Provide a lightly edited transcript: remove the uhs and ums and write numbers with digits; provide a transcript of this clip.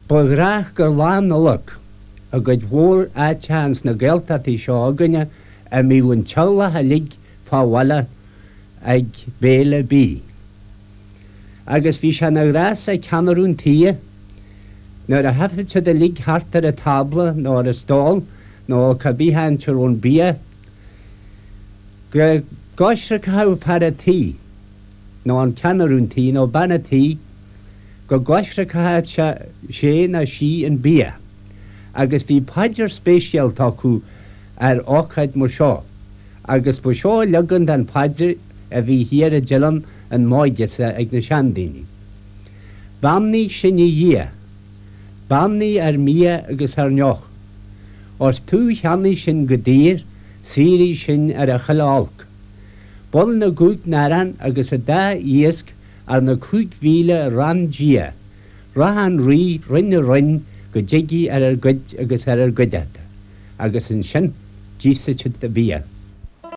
Ba ghnách gur Lá Nollag i gcuid mhór áiteacha ins na Gaeltachtaí seo againne a mbíodh an teaghlach uilig fá bhaile ag béile bídh. Agus bhí sé ina ghnás ag ceannairí an tíghe, nuair a thiocfadh siad uilig thart ar an tábla nó ar an stól nó cá bith áit a raibh an bia, go gcoisricfeadh fear a' tí, nó an ceannaire an tí nó bean a' tí, go gcoisricfeadh sé nó sí an bia. Agus bhí paidir speisialta acu ar ócáid mar seo, agus ba seo leagan den phaidir a bhí thiar i dTeileann an m'óige-sa ag na seandaoine. Beannaigh sinn a Dhia, beannaigh ár mbia agus ár ndeoch. Ós tú cheannaigh sinn go daor, saoraigh sinn ar a chuile olc. B'ionann na gcúig n-arán agus an dá iasc arna 5,000 rann Dia, rath an Rí roinn a roinn go dtigidh ar ár gcuid agus ar ár gcuideachta, agus ansin d'íosfadh siad an bia.